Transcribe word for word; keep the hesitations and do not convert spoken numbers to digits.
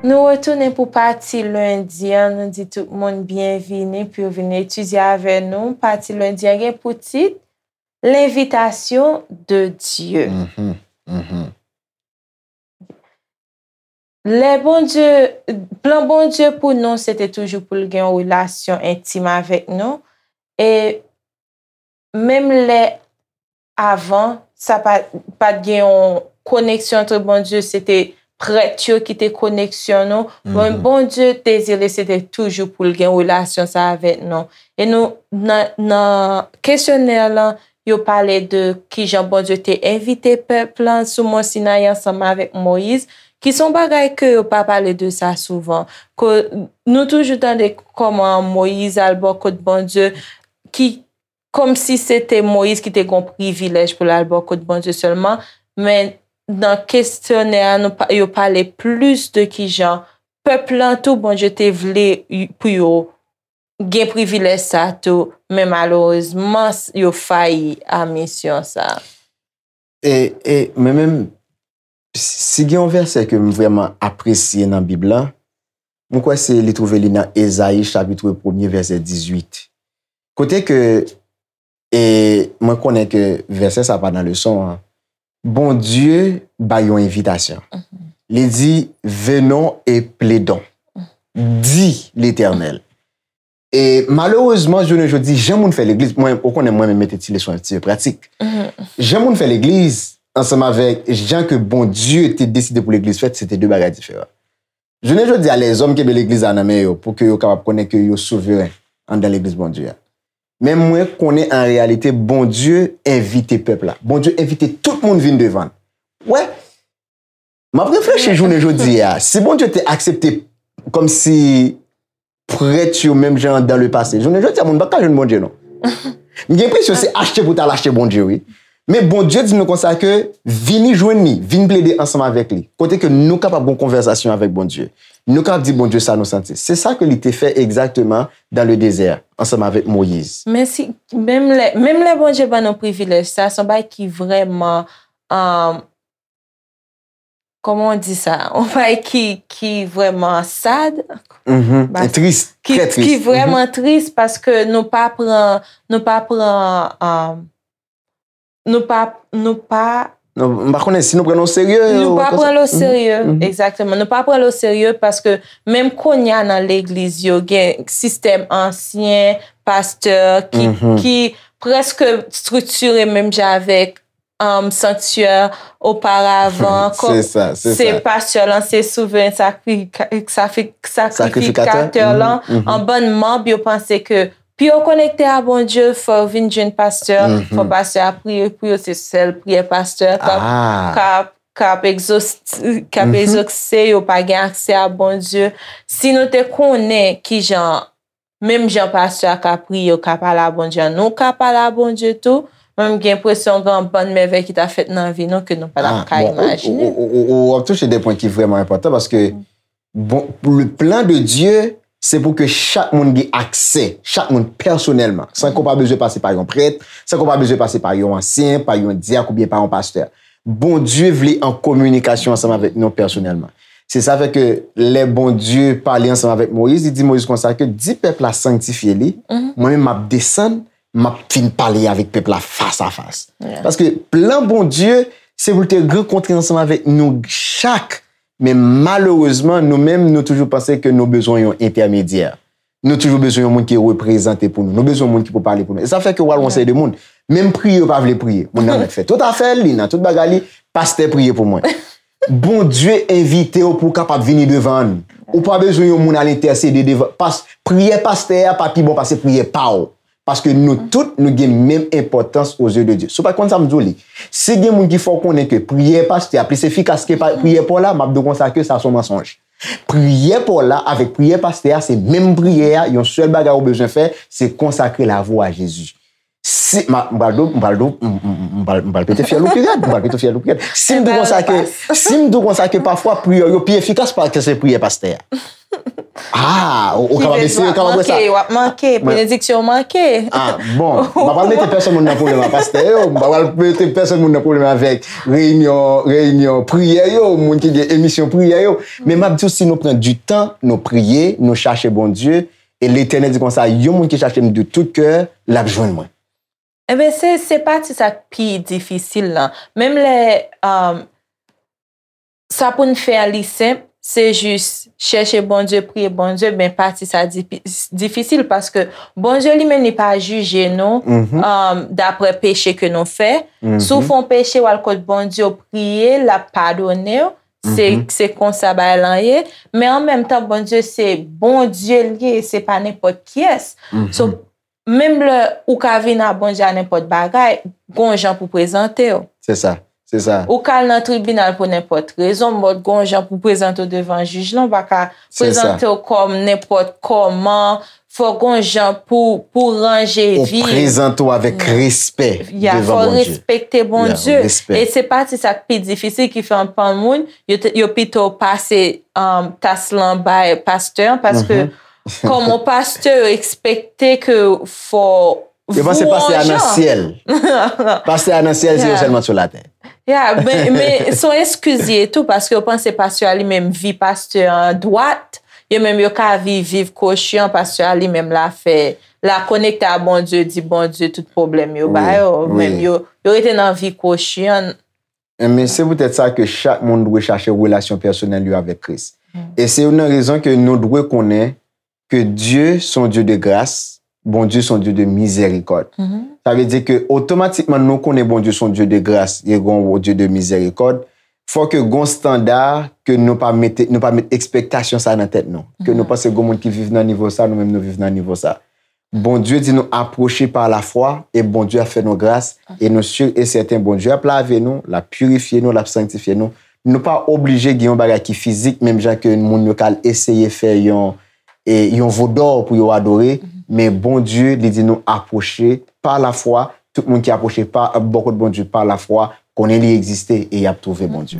Nou retounen pou pati lendi an. Nou di tout moun byenvini pou yo vin etidye avè nou. Pati lendi an gen pou tit L'invitation de Dieu. Mhm, mhm. Lè Bondye, plan Bondye pou nou, se te toujou pou l gen yon relasyon entim avèk nou. E menm lè avan, sa pa, pa t gen yon koneksyon antre Bondye, se te prèt yo ki te koneksyon nou. Men Bondye dezire se te toujou pou l gen relasyon sa avèk nou. E nou, nan, nan kesyonè lan, yo pale de kijan Bondye te envite pèp lan sou Mòn Sinayi ansanm avèk Moyiz, ki se yon bagay ke yo pa pale de sa souvan. Ke nou toujou tande kòman Moyiz al bò kot Bondye, ki kòmsi se te Moyiz ki te gen yon privilèj pou l al bò kot Bondye sèlman, men nan kesyonè a, nou pa, yo pale plis de kijan pèp lan tou, Bondye te vle y-, pou yo gen privilèj sa tou, men malerezman, s-, yo fayi a misyon sa. E, e mwen menm, si gen yon vèsè ke m vrèman apresye nan Bib la, mwen kwè se li twouve li nan Ezayi chapit premye vèsè dizuit. Kote ke, e mwen konnen ke vèsè sa pa nan leson an, Bondye bay yon envitasyon. Li di, venons et plaidons, dit l'Éternel. E malerezman, jounen jodi, jan moun fè legliz, mwen, ou konnen mwen menm mete ti leson yo, ti pratik. Jan moun fè legliz, ansanm avèk jan ke Bondye te deside pou legliz fèt, se te de bagay diferan. Jounen jodi a, lèzòm kenbe legliz la nan men yo pou ke yo kapab konnen ke yo souveren anndan legliz Bondye a. Men mwen konnen an reyalite, Bondye envite pèp la. Bondye envite tout moun vin devan l. Wè, m ap reflechi jounen jodi a. Si Bondye te aksepte kòmsi prèt yo menm jan dan le pase, jounen jodi a, moun pa ka jwenn Bondye, non. M gen enpresyon se achte pou t al achte Bondye, wi. Men Bondye di nou konsa ke vini jwenn li, vin plede ansanm avèk li. Kote ke nou kapab gon konvèsasyon avèk Bondye. Nou kapab di Bondye sa nou santi. Se sa ke li te fè egzakteman dan le dezè, ansanm avèk Moyiz. Men si, menm lè, menm lè Bondye ban nou privilèj sa, se yon bagay ki vrèman, um, kòman w di sa? Yon bagay ki, ki vrèman sad. Mhm. E tris, ki, trè tris. Ki vrèman tris paske nou pa pran, nou pa pran, um, nou pa, nou pa Non, m pa konnen si nou pran l o serye. Nou pa pran l o serye, egzakteman. Nou pa pran l o serye paske menm kounye a nan legliz yo, gen sistèm ansyen pastè ki, ki prèske estriktire menm jan avèk, um, sanktyè oparavan. Se sa, se sa. Pastè lan se souveren sakri-, sakri-, sakrifikatè lan. An bann manm yo panse ke pou yo konekte a Bondye, fò yo vin jwenn pastè, fò pastè a priye pou yo, se sèl priyè pastè k ap, k ap, k ap egzos-, k ap egzose, yo pa gen aksè a Bondye. Si nou te konnen kijan, menm jan pastè a ka priye, yo ka pale a Bondye, nou ka pale a Bondye tou, mwen m gen enpresyon gen yon bann mèvèy ki ta fèt nan vi nou ke nou pa t ap ka imajine. Ou, ou, ou, ou, ou ap touche de pwen ki vrèman enpòtan paske Bon, le plan de Dieu, se pou ke chak moun gen aksè, chak moun pèsonèlman, san ke w pa bezwen pase pa yon prèt, san ke w pa bezwen pase pa yon ansyen, pa yon dyak oubyen pa yon pastè. Bondye vle an kominikasyon ansanm avèk nou pèsonèlman. Se sa fè ke lè Bondye pale ansanm avèk Moyiz, li di Moyiz konsa ke di pèp la sanktifye li, mwen menm m ap desann, m ap vin pale avèk pèp la fas a fas. Paske plan Bondye, se pou l te rankontre ansanm avèk nou chak Men malerezman, nou menm, nou toujou panse ke nou bezwen yon entèmedyè. Nou toujou bezwen yon moun ki reprezante pou nou. Nou bezwen yon moun ki pou pale pou nou. E sa fè ke w al wè yon seri de moun. Menm priye, yo pa vle priye. Moun nan mèt fè tout afè l, li nan tout bagay li, pastè priye pou mwen. Bondye envite w pou w kapab vini devan l. Ou pa bezwen yon moun al entèsede devan. Pas, priyè pastè a pa pi bon pase priyè pa w. Paske nou tout, nou gen menm enpòtans o zye de Dye. Si w pa konn sa, m di w li. Si gen moun ki fè w konnen ke priyè pastè a plis efikas ke pa, priyè pa w la, m ap di w konsa ke sa se yon mansonj. Priyè pa w la avèk priyè pastè a, se menm priyè a, yon sèl bagay ou bezwen fè, se konsakre lavi w a Jezi. Si, m a, m pral di w, m pral di w, m, m, m, m pral, m pral pete fyèl ou pi rèd, m pral pete fyèl ou pi rèd. Si m di w konsa ke, si m di w konsa ke pafwa priyè yo pi efikas pase priyè pastè a. Ah, ou, ou kapab eseye, ou kapab wè sa. W ap manke, benediksyon w manke. Ah, bon, m pa pral mete pèsonn moun nan pwoblèm ak pastè yo, m pa pral mete pèsonn moun nan pwoblèm avèk reyinyon, reyinyon priyè yo, moun ki gen emisyon priyè yo. Men m ap di w, si nou pran di tan, nou priye, nou chache Bondye, e Letènèl di konsa, yon moun ki chache m de tout kè, l ap jwenn mwen. Enben, se, se pati sa k pi difisil lan. Menm lè, um, sa pou n fè a li senp, se jis chèche Bondye, priye Bondye, ben pati sa difi- difisil paske Bondye li menm li pa jije nou um, daprè peche ke nou fè. Si w fè yon peche, w al kot Bondye, w priye, l ap padone w. Se se konsa bagay lan ye. Men an menm tan, Bondye se Bondye l ye, se pa nenpòt kiyès. So, menm lè ou ka vin a Bondye a nenpòt bagay, gon jan pou prezante w. Se sa, se sa. Ou ka al nan tribinal pou nenpòt rezon, but gon jan pou prezante w devan jij lan, ou pa ka prezante w kòm nenpòt kòman, fò gon jan pou, pou ranje vi. Ou prezante w avèk respè devan Bondye. Fò respekte Bondye. E se pati sa k pi difisil ki fè anpil moun, yo, yo pito pase um, tas lan bay pastè an, paske kòm yon pastè, yo ekspekte ke fò Yo panse pastè a nan syèl. Pastè a nan syèl, se yo sèlman sou latè. Ya, men, men se yon eskiz ye tou, paske yo panse pastè a li menm vi pastè an dwat, yo menm yo ka viv, viv kwochi an, pastè a li menm la fè, la konekte a Bondye, di Bondye tout pwoblèm yo ba yo, menm yo, yo rete nan vi kwochi an. Men se poutèt sa ke chak moun dwe chache relasyon pèsonèl yo avèk Kris. E se youn nan rezon ke nou dwe konnen ke Dye se yon Dye de gras, Bondye se yon Dye de mizèrikòd. Sa vle di ke otomatikman nou konnen Bondye se yon Dye de gras, e gon Dye de mizèrikòd, fò ke gon standa ke nou pa mete, nou pa met ekspektasyon sa nan tèt nou. Ke nou panse gon moun ki viv nan nivo sa, nou menm nou viv nan nivo sa. Bondye di nou apwoche pa lafwa e Bondye ap fè nou gras e nou si e sèten Bondye ap lave nou, l ap pirifye nou, l ap sanktifye nou. Nou pa oblije gen yon bagay ki fizik, menm jan ke moun yo ka al eseye fè yon, e, yon vodò pou yo adore, men Bondye, li di nou apwoche pa lafwa, tout moun ki apwoche pa, bò kot Bondye pa lafwa, konnen li egziste e y ap twouve Bondye.